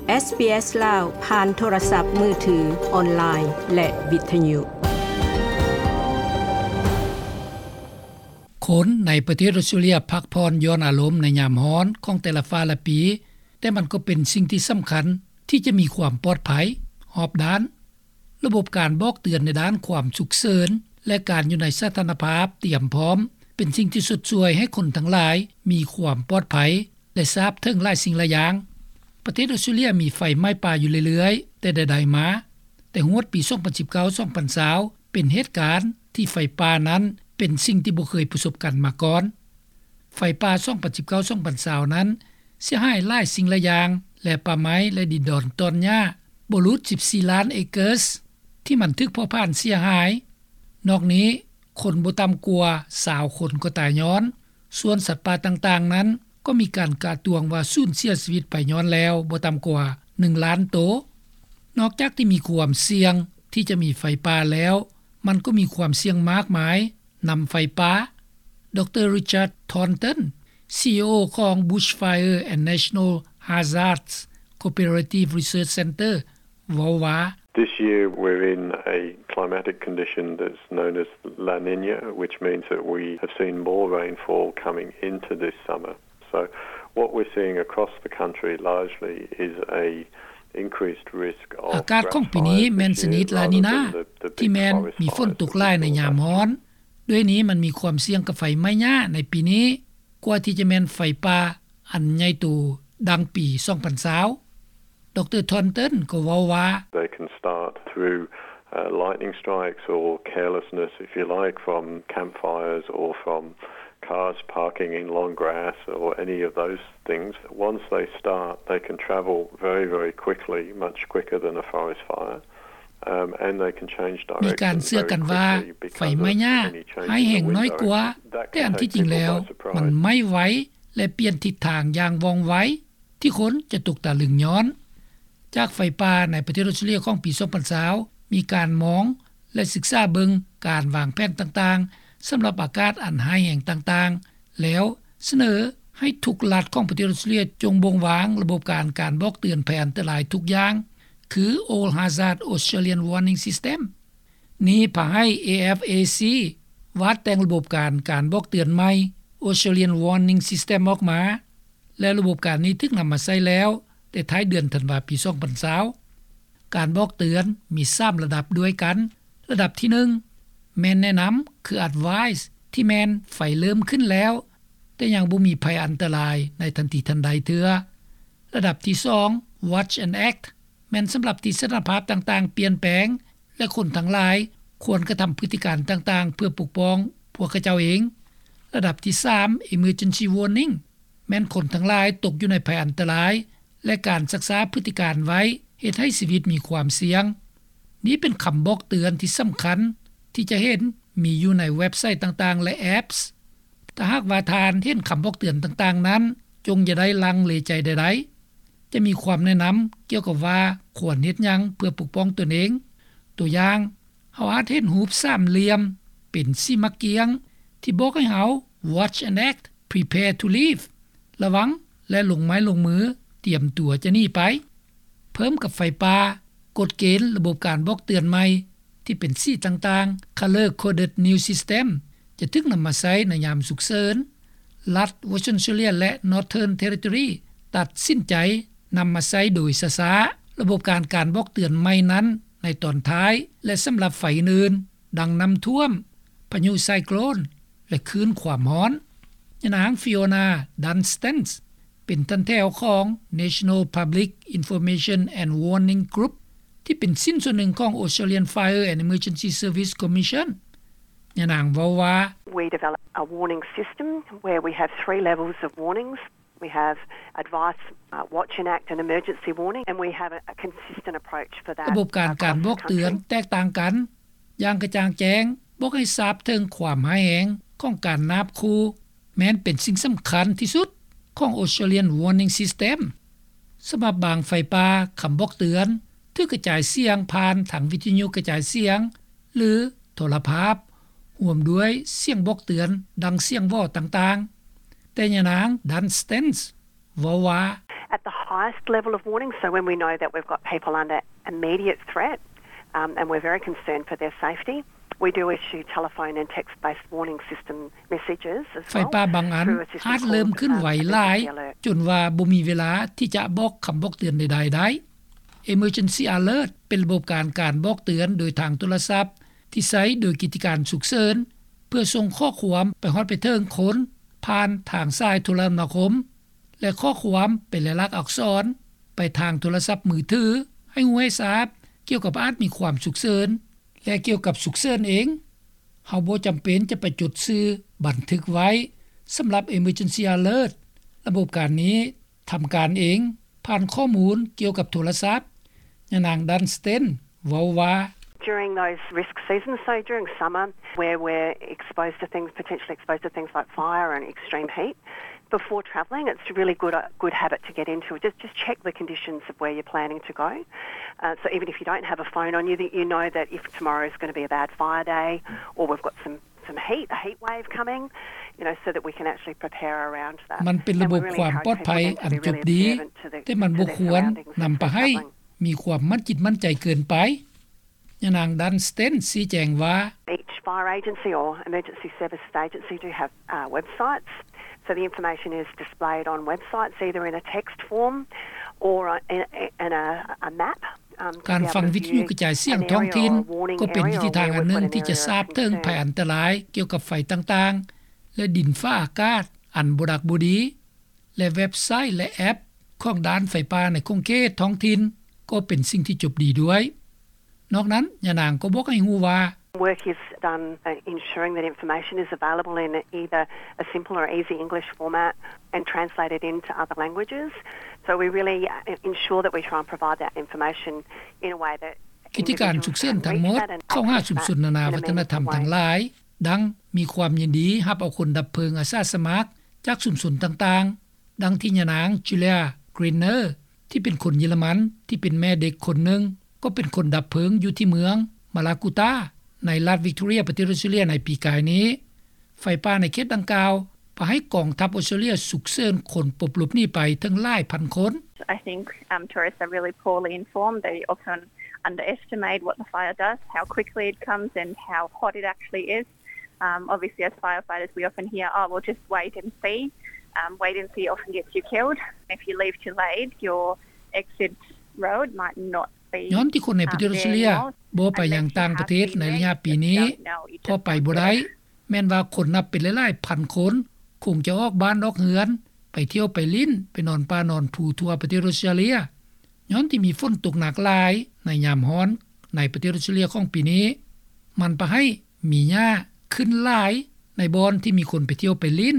ເອສບີເອສ ລາວ ຜ່ານໂທລະສັບມືຖື, ອອນລາຍ ແລະ ວິທະຍຸ. ຄົນໃນປະເທດອົດສະຕຣາເລຍພັກຜ່ອນຢ່ອນອາລົມໃນຍາມຮ້ອນຂອງແຕ່ລະຟ້າ ແລະ ປີ, ແຕ່ມັນກໍເປັນສິ່ງທີ່ສຳຄັນທີ່ຈະມີຄວາມປອດໄພຮອບດ້ານ. ລະບົບການບອກເຕືອນໃນດ້ານຄວາມສຸກເສີນ ແລະ ການຢູ່ໃນສະຖານະພາບຕຽມພ້ອມ ເປັນສິ່ງທີ່ຊົດຊ່ວຍໃຫ້ຄົນທັງຫຼາຍມີຄວາມປອດໄພ ແລະ ຊາບເຖິງຫຼາຍສິ່ງຫຼາຍຢ່າງ. ປະເທດອົດສະຕຣາເລຍມີໄຟໄໝ້ປ່າຢູ່ເລື້ອຍໆ ແຕ່ໃດໆມາ, ແຕ່ຮອດປີສອງພັນສິບເກົ້າ ສອງພັນຊາວ ເປັນເຫດການທີ່ໄຟປ່ານັ້ນເປັນສິ່ງທີ່ບໍ່ເຄີຍປະສົບກັນມາກ່ອນ. ໄຟປ່າສອງພັນສິບເກົ້າ ສອງພັນຊາວນັ້ນເສຍຫາຍຫຼາຍສິ່ງຫຼາຍຢ່າງ ແລະ ປ່າໄມ້ ແລະ ດິນດອນຕອນຫຍ້າບໍ່ຫຼຸດສິບສີ່ລ້ານເອເກີສ ທີ່ມັນຖືກເຜົາຜານເສຍຫາຍ. ນອກນີ້, ຄົນບໍ່ຕ່ຳກວ່າຊາວຄົນກໍຕາຍຍ້ອນ, ສ່ວນສັດປ່າຕ່າງໆນັ້ນກໍມີການກະຕວງວ່າສູນເສຍຊີວິດໄປຍ້ອນແລ້ວບໍ່ຕ່ຳກວ່າໜຶ່ງລ້ານໂຕ. ນອກຈາກທີ່ມີຄວາມສ່ຽງທີ່ຈະມີໄຟປ່າແລ້ວ, ມັນກໍມີຄວາມສ່ຽງມາກມາຍນຳໄຟປ່າ. ດຣ. Richard Thornton, ຊີອີໂອ ຂອງ Bushfire and National Hazards Cooperative Research Centre ເວົ້າວ່າ, This year we're in a climatic condition that's known as La Niña, which means that we have seen more rainfall coming into this summer. So what we're seeing across the country largely is a increased risk of ອາກາດຂອງປີນີ້ແມ່ນຊະນິດລານີນາ ທີ່ແມ່ນມີຝົນຕົກຫຼາຍໃນຍາມຮ້ອນ. ດ້ວຍນີ້ມັນມີຄວາມສ່ຽງກັບໄຟໄໝ້ຫຍ້າໃນປີນີ້ ກວ່າທີ່ຈະແມ່ນໄຟປ່າອັນໃຫຍ່ໂຕດັ່ງປີສອງພັນຊາວ. ດຣ. Thornton ກໍເວົ້າວ່າ, They can start through, uh, lightning strikes or carelessness, if you like, from campfires or from cars parking in long grass or any of those things. Once they start, they can travel very, very quickly, much quicker than a forest fire. Um, and they can change direction very quickly because of any change in the wind direction. ມີການເຊື່ອກັນວ່າໄຟໄໝ້ຫຍ້າຮ້າຍແຮງນ້ອຍກວ່າ, ແຕ່ອັນທີ່ຈິງແລ້ວມັນໄໝ້ໄວ ແລະ ປ່ຽນທິດທາງຢ່າງວ່ອງໄວ ທີ່ຄົນຈະຕົກຕະລຶງຍ້ອນ. ຈາກໄຟປ່າໃນປະເທດອົດສະຕຣາເລຍຂອງປີສອງພັນຊາວ ມີການມອງ ແລະ ສຶກສາເບິ່ງການວາງແຜນຕ່າງໆ ສຳລັບອາກາດອັນຮ້າຍແຮງຕ່າງໆ ແລ້ວສະເໜີໃຫ້ທຸກລັດຂອງປະເທດອົດສະຕຣາເລຍ ຈົ່ງບົ່ງວາງລະບົບການ ການບອກເຕືອນໄພອັນຕະລາຍທຸກຢ່າງ ຄື All Hazard Australian Warning System. ນີ້ພາໃຫ້ ເອ ເອັຟ ເອ ຊີ ວາດແຕ່ງລະບົບການ ການບອກເຕືອນໃໝ່ Australian Warning System ອອກມາ ແລະ ລະບົບການນີ້ຖືກນຳມາໃຊ້ແລ້ວ ແຕ່ທ້າຍເດືອນທັນວາ ປີສອງພັນຊາວ. ການບອກເຕືອນມີສາມລະດັບດ້ວຍກັນ. ລະດັບທີໜຶ່ງ ແມ່ນແນະນຳ ຄື advice ທີ່ແມ່ນໄຟເລີ່ມຂຶ້ນແລ້ວ ແຕ່ຍັງບໍ່ມີໄພອັນຕະລາຍໃນທັນທີທັນໃດເທື່ອ. ລະດັບທີສອງ watch and act ແມ່ນສຳລັບທີ່ສະຖານະພາບຕ່າງໆປ່ຽນແປງ ແລະ ຄົນທັງຫຼາຍຄວນກະທຳພຶດຕິການຕ່າງໆ ເພື່ອປົກປ້ອງພວກເຂົາເຈົ້າເອງ. ລະດັບທີສາມ emergency warning ແມ່ນຄົນທັງຫຼາຍຕົກຢູ່ໃນໄພອັນຕະລາຍ ແລະ ການຊັກຊ້າພຶດຕິການໄວ້ ເຮັດໃຫ້ຊີວິດມີຄວາມສ່ຽງ. ນີ້ເປັນຄຳບອກເຕືອນທີ່ສຳຄັນທີ່ຈະເຫັນມີຢູ່ໃນເວັບໄຊຕ່າງໆ ແລະ apps. ຖ້າຫາກວ່າທ່ານເຫັນຄຳບອກເຕືອນຕ່າງໆນັ້ນ, ຈົ່ງຢ່າໄດ້ລັງເລໃຈໃດໆ. ຈະມີຄວາມແນະນຳກ່ຽວກັບວ່າຄວນເຮັດຫຍັງເພື່ອປົກປ້ອງຕົນເອງ. ຕົວຢ່າງ, ເຮົາອາດເຫັນຮູບສາມຫຼ່ຽມເປັນສີໝາກກ້ຽງ ທີ່ບອກໃຫ້ເຮົາ watch and act, prepare to leave ລະວັງ ແລະ ລົງໄມ້ລົງມື, ຕຽມຕົວຈະໜີໄປ. ເພີ່ມກັບໄຟປ່າ, ກົດເກນລະບົບການບອກເຕືອນໃໝ່ ທີ່ເປັນສີຕ່າງໆ Color Coded New System ຈະຖືກນຳມາໃຊ້ໃນຍາມສຸກເສີນ. ລັດ Western Australia ແລະ Northern Territory ຕັດສິນໃຈນຳມາໃຊ້ໂດຍຊ້າໆ ລະບົບການ ການບອກເຕືອນໃໝ່ນັ້ນໃນຕອນທ້າຍ ແລະ ສຳລັບໄຟອື່ນໆ ດັ່ງນ້ຳຖ້ວມ, ພາຍຸໄຊໂກຣນ ແລະ ຄື້ນຄວາມຮ້ອນ. ຍານາງ Fiona Dunstance ເປັນທ່ານແຖວຂອງ National Public Information and Warning Group ທີ່ເປັນຊິ້ນສ່ວນໜຶ່ງຂອງ Australian Fire and Emergency Service Commission. ຍານາງເວົ້າວ່າ, We develop a warning system where we have three levels of warnings. We have advice, uh, watch and act and emergency warning, and we have a, a consistent approach for that across the country. ລະບົບການ ການບອກເຕືອນແຕກຕ່າງກັນຢ່າງກະຈ່າງແຈ້ງ, ບອກໃຫ້ຊາບເຖິງຄວາມຮ້າຍແຮງຂອງການນາບຂູ່ ແມ່ນເປັນສິ່ງສຳຄັນທີ່ສຸດຂອງ Australian Warning System. ສຳລັບບາງໄຟປ່າ, ຄຳບອກເຕືອນຖືກກະຈາຍສຽງຜ່ານທາງວິທະຍຸກະຈາຍສຽງ ຫຼື ໂທລະພາບ, ຮ່ວມດ້ວຍສຽງບອກເຕືອນດັ່ງສຽງຫວໍຕ່າງໆ. ແຕ່ຍານາງ Dunstance ເວົ້າວ່າ, At the highest level of warning. So when we know that we've got people under immediate threat, um, and we're very concerned for their safety, we do issue telephone and text-based warning system messages as well. ໄຟປ່າບາງອັນອາດເລີ່ມເຄື່ອນໄຫວຫຼາຍ ຈົນວ່າບໍ່ມີເວລາທີ່ຈະບອກຄຳບອກເຕືອນໃດໆໄດ້. Emergency Alert ເປັນລະບົບການການບອກເຕືອນໂດຍທາງໂທລະສັບ ທີ່ໃຊ້ໂດຍກິດຈະການສຸກເສີນ ເພື່ອສົ່ງຂໍ້ຄວາມໄປຮອດໄປເຖິງຄົນ ຜ່ານທາງສາຍໂທລະນາຄົມ ແລະ ຂໍ້ຄວາມເປັນລາຍລັກອັກສອນໄປທາງໂທລະສັບມືຖື ໃຫ້ຮູ້ໃຫ້ຊາບກ່ຽວກັບອາດມີຄວາມສຸກເສີນ. ແລະ ກ່ຽວກັບສຸກເສີນເອງ, ເຮົາບໍ່ຈຳເປັນຈະໄປຈົດຊື່ບັນທຶກໄວ້. ສຳລັບ Emergency Alert ລະບົບການນີ້ທຳການເອງ ຜ່ານຂໍ້ມູນກ່ຽວກັບໂທລະສັບ. ຍານາງ Dunstan ເວົ້າວ່າ During those risk seasons, so during summer, where we're exposed to things, potentially exposed to things like fire and extreme heat, before travelling, it's a really good, uh, good habit to get into. Just, just check the conditions of where you're planning to go. Uh, so even if you don't have a phone on you, that you know that if tomorrow is gonna be a bad fire day, or we've got some, some heat, a heat wave coming, you know, so that we can actually prepare around that. ມັນເປັນລະບົບຄວາມປອດໄພອັນຈົບດີ, ແຕ່ມັນບໍ່ຄວນນຳພາໃຫ້ມີຄວາມໝັ້ນຈິດໝັ້ນໃຈເກີນໄປ. ຍານາງ Dunstan ຊີ້ແຈງວ່າ Each fire agency or emergency services agency do have, uh, websites. So the information is displayed on websites, either in a text form or in, in a, a map. ການຟັງວິທະຍຸກະຈາຍສຽງທ້ອງຖິ່ນ ກໍເປັນວິທີທາງອັນໜຶ່ງທີ່ຈະຊາບເຖິງໄພອັນຕະລາຍກ່ຽວກັບໄຟຕ່າງໆ ແລະ ດິນຟ້າອາກາດອັນບໍ່ດັກບໍ່ດີ ແລະ ເວັບໄຊ ແລະ ແອັບຂອງດ້ານໄຟປ່າໃນຂົງເຂດທ້ອງຖິ່ນ ກໍເປັນສິ່ງທີ່ຈົບດີດ້ວຍ. ນອກນັ້ນ, ຍານາງກໍບອກໃຫ້ຮູ້ວ່າ Work is done, uh, ensuring that information is available in either a simple or easy English format and translated into other languages. So we really, uh, ensure that we try and provide that information in a way that ກິດຈະການສຸກເສີນທັງໝົດເຂົ້າຫາຊຸມຊົນນານາວັດທະນະທຳທັງຫຼາຍ, ດັ່ງມີຄວາມຍິນດີຮັບເອົາຄົນດັບເພີງອາສາສະໝັກຈາກຊຸມຊົນຕ່າງໆ. ດັ່ງທີ່ຍານາງ Julia Greener ທີ່ເປັນຄົນເຢຍລະມັນ ທີ່ເປັນແມ່ເດັກຄົນໜຶ່ງ ກໍເປັນຄົນດັບເພີງຢູ່ທີ່ເມືອງ Mallacoota ໃນລັດ Victoria ປະເທດອອສເຕຣເລັຽໃນປີກາຍນີ້. ໄຟປ່າໃນເຂດດັ່ງກ່າວ ພາໃຫ້ກອງທັບອອສເຕຣເລັຽສຸກເສີນຄົນປົບຫຼົບໜີໄປເຖິງຫຼາຍພັນຄົນ. I think, um, tourists are really poorly informed. They often underestimate what the fire does, how quickly it comes and how hot it actually is. Um, obviously, as firefighters, we often hear, "Oh, we'll just wait and see." Um, wait and see often gets you killed. If you leave too late, your exit road might not be, ຍ້ອນທີ່ຄົນໃນປະເທດອອສເຕຣເລັຽບໍ່ໄປຍັງຕ່າງປະເທດໃນໄລຍະປີນີ້ ເພາະໄປບໍ່ໄດ້. ແມ່ນວ່າຄົນນັບເປັນຫຼາຍໆພັນຄົນ ຄົງຈະອອກບ້ານອອກເຮືອນ ໄປທ່ຽວໄປຫຼິ້ນ ໄປນອນປ່ານອນພູທົ່ວປະເທດອອສເຕຣເລັຽ. ຍ້ອນທີ່ມີຝົນຕົກໜັກຫຼາຍໃນຍາມຮ້ອນໃນປະເທດອອສເຕຣເລັຽຂອງປີນີ້, ມັນພາໃຫ້ມີຫຍ້າຂຶ້ນຫຼາຍໃນບ່ອນທີ່ມີຄົນໄປທ່ຽວໄປຫຼິ້ນ.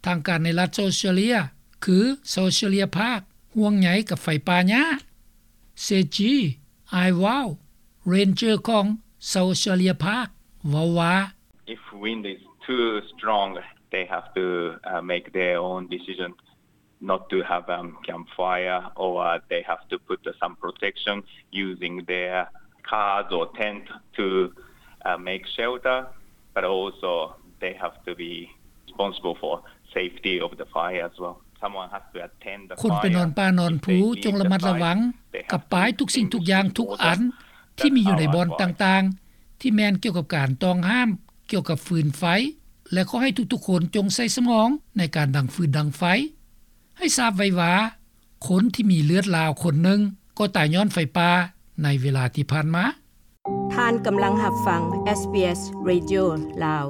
ທາງການໃນລັດ South Australia ຄື South Australia Parks ຫ່ວງໃຍກັບໄຟປ່າຫຍ້າ. Seiji Aiwau, Ranger ຂອງ South Australia Parks ເວົ້າວ່າ If wind is too strong, they have to, uh, make their own decision not to have, um, campfire, or, uh, they have to put, uh, some protection using their cars or tent to, uh, make shelter, but also they have to be responsible for safety of the fire as well. Someone has to attend the fire. ຄົນໄປນອນປ່ານອນພູຈົ່ງລະມັດລະວັງກັບປ້າຍທຸກສິ່ງທຸກຢ່າງທຸກອັນທີ່ມີຢູ່ໃນບ່ອນຕ່າງໆ ທີ່ແມ່ນກ່ຽວກັບການຕ້ອງຫ້າມກ່ຽວກັບຟືນໄຟ ແລະ ຂໍໃຫ້ທຸກໆຄົນຈົ່ງໃສ່ສະໝອງໃນການດັງຟືນດັງໄຟ. ໃຫ້ຊາບໄວ້ວ່າ ຄົນທີ່ມີເລືອດລາວຄົນໜຶ່ງກໍຕາຍຍ້ອນໄຟປ່າໃນເວລາທີ່ຜ່ານມາ. ທ່ານກຳລັງຮັບຟັງ SBS Radio ລາວ.